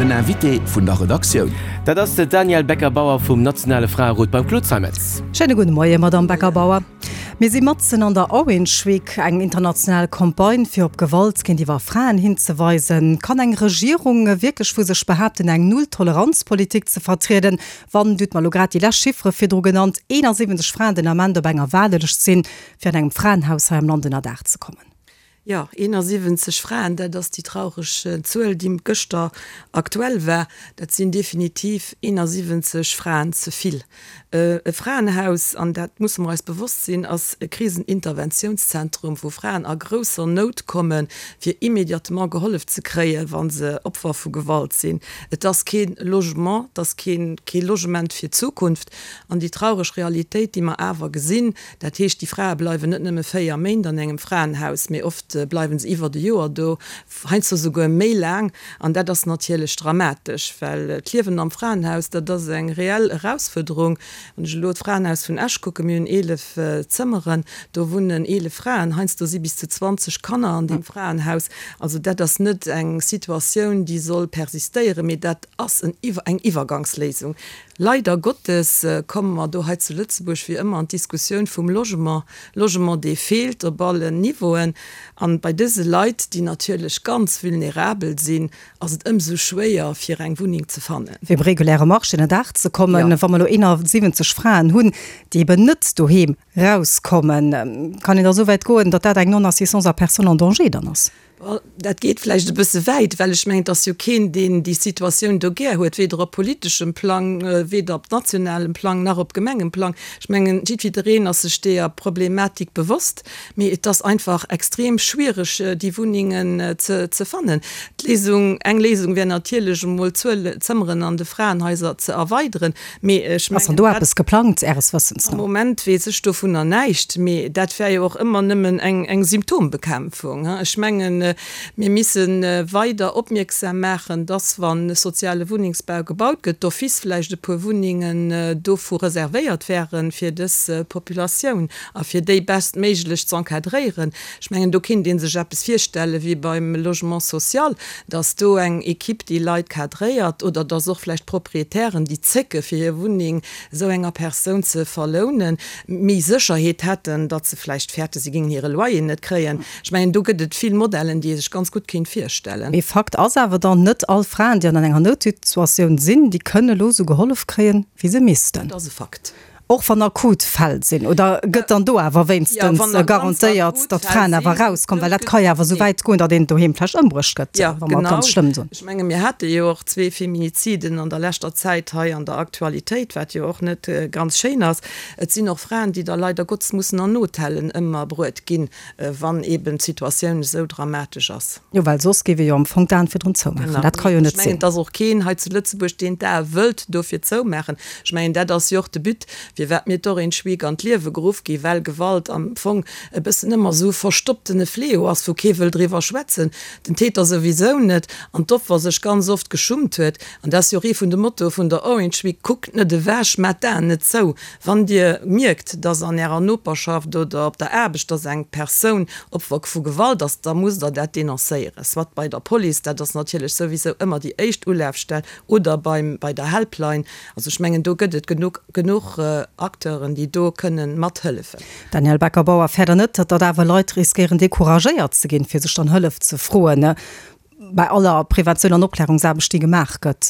Den Invité vun der Redaktioun. Dat ass de Danièle Becker-Bauer vum nationale Fraerot beim Claude Zeimetz. Schéine gudde Moie, Madamm Becker-Bauer. Mir si matzen an der Orange Week, eng international Campagne fir op Gewalt géintiwwer Fraen hinzeweisen. Kann eng Regierung wierklech vu sech behaapten, eng Null-Toleranz-Politik ze vertrieden, wann, Dir hutt mer elo grad déi lescht Chiffere virdru genannt, 71 Fraen den Ament op enger Waardelëscht sinn, fir an engem Fraenhaus hei am Land ënnerdaach ze kommen? Jo, 71 Fraen, dat ass déi traureg Zuel, déi gëschter aktuell war. Dat sinn definitiv 71 Fraen ze vill. E Fraenhaus, an dat musse mer eis bewosst sinn, ass e Kriseninterventiounszentrum, wou Fraen a grousser Nout kommen, fir immédiatement gehollef ze kréien, wa se Opfer vu Gewalt sinn. Et ass kee Logement, et ass kee Logement fir d'Zukunft. An déi traureg Realitéit, déi mer awer gesinn, Dat heescht, déi Frae bleiwen net nëmme 4 Méint an engem Fraenhaus, mee oft bleiwe se iwwert e Joer do, heiansdo souguer méi laang. An dat ass natierlech dramatesch, well d'Liewen am Fraenhaus, dat ass eng reell Erausfuerderung. Wann ech elo d'Fraenhaus vun Esch kucken, mir hunn 11 Zëmmeren, do wunnen 11 Fraen, heiansdo si bis zu 20 Kanner an deem Fraenhaus. Also dat ass net eng Situatioun, déi soll persistéieren, mee dat ass eng Iwwergangsléisung. Leider Gottes komme mer do hei zu Lëtzebuerg wéi ëmmer an d'Diskussioun vum Logement, Logement dee feelt op allen Niveauen. An bei dëse Leit, déi natierlech ganz vulnerabel sinn, ass et ëmsou schwéier fir eng Wunneng ze fannen. Fir um reguläre Marché ënnerdaach ze kommen. Wa mer elo 71 Fraen hunn, déi eben net doheem rauskommen, kann een da esou wäit goen, datt dat eng Non-assistance à personne en danger dann ass? Bon, dat geet vläicht e bësse wäit, well ech mengen, et ass jo keen, deen déi Situatioun do gär huet, weder op politeschem Plang, weder op nationalem Plang nach op Gemengeplang. Ech mengen, jiddwidereen ass sech deeër Problematik bewosst, mee et ass einfach extrem schwiereg, déi Wunnengen ze fannen. D'Léisung, eng Léisung wär natierlech emol d'Zuel Zëmmeren an de Fraenhaiser ze erweideren, Mee ech Ass dann do eppes geplangt, Äres Wëssens no? Am Moment weess ech dovunner näischt. Mee dat wär jo och ëmmer nëmmen eng Symptombekämpfung. Ech mengen, mir misse weider opmierksam maachen, dass, wa soziale Wunnengsbau gebaut gëtt, d'office vläicht e puer Wunnengen dovu reservéiert wären, fir dës Populatioun a fir déi bestméiglech z'encadréieren. Ech mengen, do kinnt ee sech eppes virstelle wéi beim Logement social, dass do eng Equipe déi Leit cadréiert oder dass och vläicht Proprietären, déi zécke fir hir Wunneng esou enger Persoun ze verlounen, méi Sécherheet hätten, datt se vläicht fäerte se géingen hire Loyer net kréien. Ech mengen, do gëtt et vill Modellen, déi ee sech ganz gutt kéint virstellen. Mee Fakt ass awer dann, net all Fraen, déi an enger Noutsituatioun sinn, déi kënne elo esou gehollef kréien, wéi se missten. Dat ass e Fakt. Och wann akut Fäll sinn, oder gëtt dann do awer wéinstens garantéiert, datt d'Fraen awer erauskommen? Well dat ka jo awer esou wäit goen, datt een doheem vläicht ëmbruecht gëtt, wa mer et ganz schlëmm soen. Ech menge mir hate jo och zwee Feminiziden an der leschter Zäit hei an der Aktualitéit, wat jo och net ganz schéin ass. Et sinn och Fraen, déi da leider Gottes mussen an Hotellen ëmmerbruet ginn, wann eeben d'Situatioun esou dramatesch ass. Jo, well soss géif ee jo am Fong d'Aen virdrun zoumaachen. Dat ka jo net sinn. Ech mengen, et ass och keen hei zu Lëtzebuerg, deen d'Ae wëllt dofir zoumaachen. Ech mengen, dat ass jo och de But, firwat mir d'Orange Week an d'Liewe geruff ginn, well Gewalt am Fong e bëssen ëmmer esou e verstopptene Fléau ass, wou kee wëll driwwer schwätzen, den Täter souwisou net, an d'Opfer sech ganz oft geschummt huet. An dat ass jo och ee vun de Mottoe vun der Orange Week, Kuckt net ewech, maacht d'Aen net zou. Wann Dir mierkt, dass an Ärer Noperschaft oder op der Aarbecht, dass eng Persoun Opfer vu Gewalt ass, da musst Der dat denoncéieren, soit bei der Police, dat ass natierlech souwisou ëmmer déi éischt Ulafstell, oder beim, bei der Helpline. Also ech mengen, do gëtt et genuch, genuch Acteuren, déi do kënnen mathëllefen. Danielle Becker-Bauer, Fäert Der net, datt awer Leit riskéieren decouragéiert ze ginn, fir sech dann Hëllef ze froen, bei aller Preventioun an Opklärungsaarbecht, déi gemaach gëtt?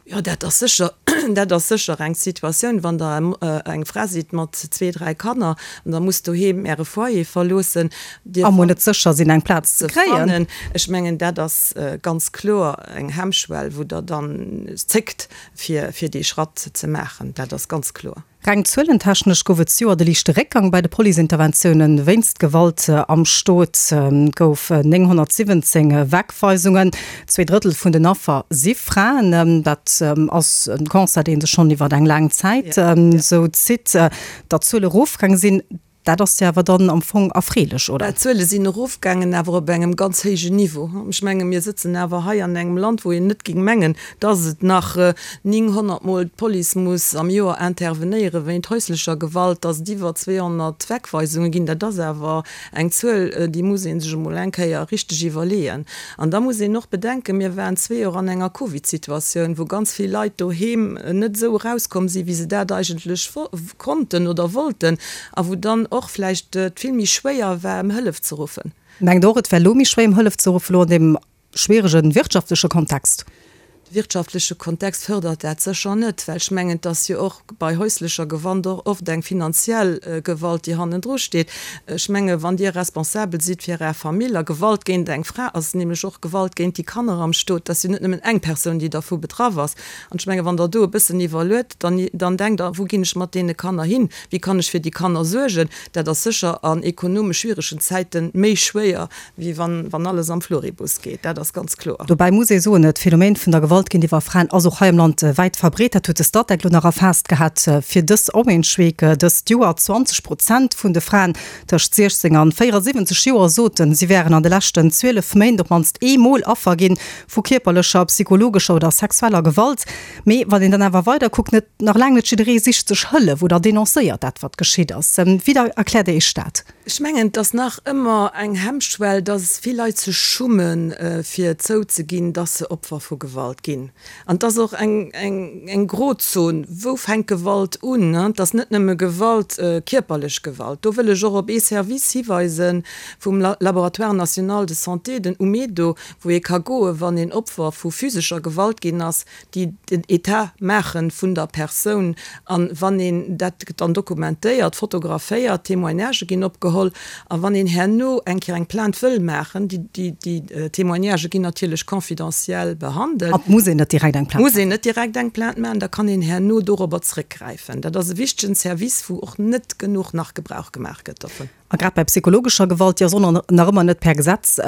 Jo, dat ass sécher, dat ass sécher eng Situatioun, wann Der eng Fra sidd mat zwee, dräi Kanner an Der musst doheem Äre Foyer verloossen, Dir A mol net sécher sinn, eng Plaz ze kréien. Ech mengen, dat ass ganz kloer eng Hemmschwell, wou Der dann zéckt, fir dee Schratt ze maachen. Dat ass ganz kloer. Reng zuelentechnesch gouf et zejoert e liichte Réckgang bei de Policeinterventioune wéinst Gewalt am Stot. Et gouf 917 Wegweisungen. Zwee Drëttel vun den Affer si Fraen. Dat ass e Constat, dee sech schonn iwwer eng laang Zäit esou zitt, datt d'Zuele erofgaange sinn. Dat ass jo awer dann am Fong erfreelech, oder? D'Zuele sinn erofgaangen, awer op engem ganz héijen Niveau. Ech menge mir sëtzen awer hei an engem Land, wou een net géing mengen, dass et nach 900 Mol d'Police muss am Joer intervenéiere wéint häuslecher Gewalt, dass et iwwer 200 Wegweisunge ginn. Dat ass awer eng Zuel, déi muss ee sech emol eng Kéier richteg iwwerleeën. An da muss een och bedenken, mir waren zwee Joer an enger Covid-Situatioun, wou ganz vill Leit doheem net esou erauskomm sinn, wéi se dat eigentlech konnten oder wollten a wou dann och vläicht et vill méi schwéier war, ëm Hëllef ze ruffen. Mengt och, et wär elo méi schwéier, ëm Hëllef ze ruffen, elo an deem schwierege wirtschaftleche Kontext? De wirtschaftleche Kontext fërdert dat sécher net, well ech mengen, et ass jo och bei häuslecher Gewalt och oft eng finanziell Gewalt, déi hannendru steet. Ech menge wann Dir responsabel sidd fir Är Famill, a Gewalt géint eng Fra ass nämlech och Gewalt géint déi Kanner am Stot, et ass jo net nëmmen eng Persoun, déi dervu betraff ass, An ech menge wann Der do e bëssen iwwerluet, dann, dann denkt Der, wou ginn ech mat deene Kanner hin, wéi kann ech fir déi Kanner suergen? Dat ass sécher an ekonomesch schwieregen Zäite méi schwéier, wéi wann, wann alles am Floribus geet. Dat ass ganz kloer. Dobäi muss ee soen, d'Phänomen vun der Gewalt géintiwwer Fraen ass och hei am Land wäit verbreet. Dat huet de Statec elo nach erfaasst gehat fir dës Orange Week dëst Joer. 20 Prozent vun de Fraen tëscht 16 an 74 Joer soten, si wären an de leschten 12 Méint op d'mannst eemol Affer ginn Vu kierperlecher, psychologescher oder sexueller Gewalt. Mee wann een dann awer weider kuckt, net, nach laang net jidderee sicht sech Hëllef oder denoncéiert dat, wat geschitt ass. Wéi da erkläert Dir Iech dat? Ech mengen, et ass nach ëmmer eng Hemmschwell, dass vill Leit sech schummen, fir zouzeginn, dass se Opfer vu Gewalt ginn. An et ass och eng, eng, eng Grozon, Wou fänkt Gewalt un? Et ass net nëmme Gewalt, kierperlech Gewalt. Do wëll ech och op ee Service hiweisen vum Laboratoire national de santé, den UMEDO, wou ee ka goen, wann een Opfer vu physescher Gewalt ginn ass, déi den Etat maache vun der Persoun. A wann een dat gëtt dann dokumentéiert, fotograféiert, Témoignagë ginn opgeholl. A wann een herno eng Kéier eng Plainte wëll maachen, déi déi Témoignagë ginn natierlech confidentiel behandelt. An et muss een net direkt eng Plainte maachen. Muss een net direkt eng Plainte maachen, da kann een herno dorobber zrëckgräifen. Dat ass e wichtegen Service, wou och net genuch nach Gebrauch gemaach gëtt dovun. A grad bei psychologescher Gewalt, déi ass och nach ëmmer net per Gesetz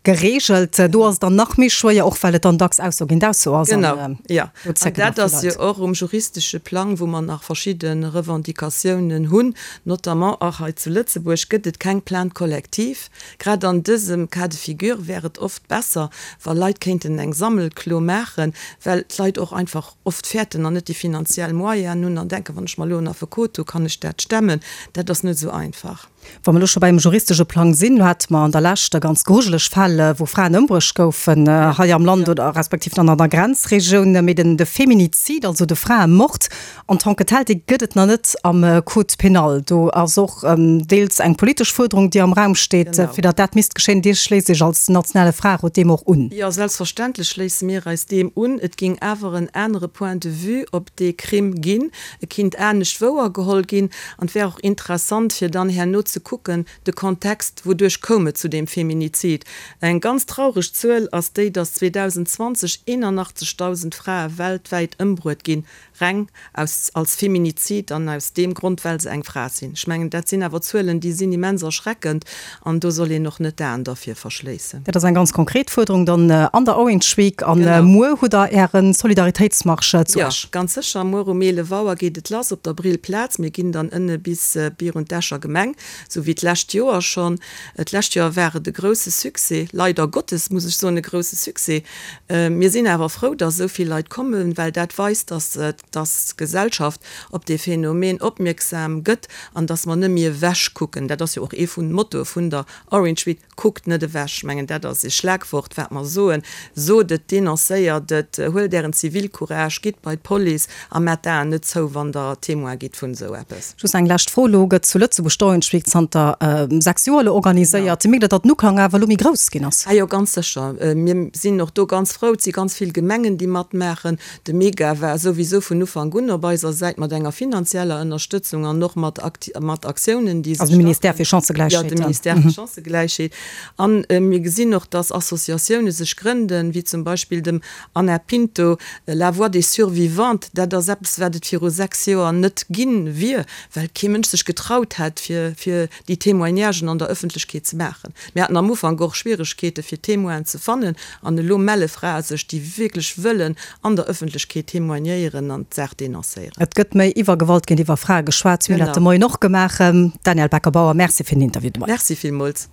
gereegelt, do ass et dann nach méi schwéier, och well et dann dacks Ausso géint Ausso ass. Genau, jo. An dat ass jo och um juristesche Plang, wou mer nach verschidde Revendicatiounen hunn, notamment och hei zu Lëtzebuerg gëtt et keng Plainte collective. Grad an dësem Cas de figure wär et oft besser, wa Leit kéinten eng Sammelklo maachen, well d'Leit och einfach oft fäerten an net déi finanziell Moyenen hunn an denken, wann ech mer elo en Affekot hu, kann ech dat stemmen. Dat ass net esou einfach. Wa mer elo scho beim juristesche Plang sinn, elo hate mer an der Lescht ganz grujeleg Fäll, wou Fraen ëmbruecht goufen hei am Land oder respektiv dann an der Grenzregioun. Mee den de Feminizid, also de Fraemord en tant que tel, dee gëtt et nach net am Code pénal. Do ass och deels eng politesch Fuerderung, déi am Raum steet, fir datt dat misst geschéien. Dir schléisst Iech als nationale Fraerot deem och un? Jo, selbstverständlech schléisse mir eis deem un. Et géing awer en anere Point de vue op dee Crime ginn. E kinnt anescht wouergeholl ginn. An et wär och interessant, fir dann herno ze kucken, de Kontext, wouduerch koum et zu deem Feminizid. Eng ganz traureg Zuel ass déi, datt 2020 81.000 Frae weltwäit ëmbruet ginn, Reng aus, als Feminizid an aus deem Grond, well se eng Fra sinn. Ech mengen, dat sinn awer Zuelen, déi sinn immens erschreckend an do soll een och net d'Aen dervir verschléissen. Dat ass eng ganz konkret Fuerderung dann an der Orange Week. A muer hutt Der Äre Solidaritéitsmarsch zu Esch. Jo, ganz sécher. Muer um 11 Auer geet et lass op der Brillplaz. Mir ginn dann ënne bis virun d'Escher Gemeng, esou wéi d'lescht Joer schonn. D'lescht Joer war et e grousse Succès, leider Gottes muss ech soen, e grousse Succès. Mir sinn awer frou, dass esou vill Leit kommen, well dat weist, dass dass d'Gesellschaft op dee Phänomen opmierksam gëtt an dass mer net méi ewech kucken. Dat ass jo och ee vun de Mottoe vun der Orange Week, Kuckt net ewech. Ech mengen, dat ass ee Schlagwort, wat mer soen. Sot et, denoncéiert et, huelt Ären Zivilcourage, gitt bei d'Police a maacht d'Aen net zou, wann Der Témoin gitt vun esou eppes. Just eng lescht Fro, Elo gëtt zu Lëtzebuerg d'Orange Week zanter 6 Joer elo organiséiert. Mierkt Der, datt den Uklang awer elo méi grouss ginn ass? Ah jo, ganz sécher. Mir sinn och do ganz frou. Et si ganz vill Gemengen, déi matmaachen. De Mega war souwisou vun Ufank un op eiser Säit mat enger finanzieller Ënnerstëtzung an och mat mat Aktiounen, déi se Also de Ministère fir Chancëgläichheet. Jo, de Ministère fir Chancëgläichheet. An mir gesinn och, datt Associatioune sech grënden, wéi zum Beispill dem Anna Pinto, La voix des survivantes. Dat ass eppes, wat et viru 6 Joer net ginn wier, well kee Mënsch sech getraut hätt, fir, fir. déi Témoignagen an der Ëffentlechkeet ze maachen. Mir haten am Ufank och Schwieregkeete fir Témoinen ze fannen an elo melle Frae sech, déi wierklech wëllen an der Ëffentlechkeet témoignéieren an d'Saach denoncéieren. Et gëtt méi iwwer Gewalt géintiwwer Frae geschwat. Si hunn dat de Moien och gemaach. Danielle Becker-Bauer, Merci fir den Interview de Moien. Merci villmools.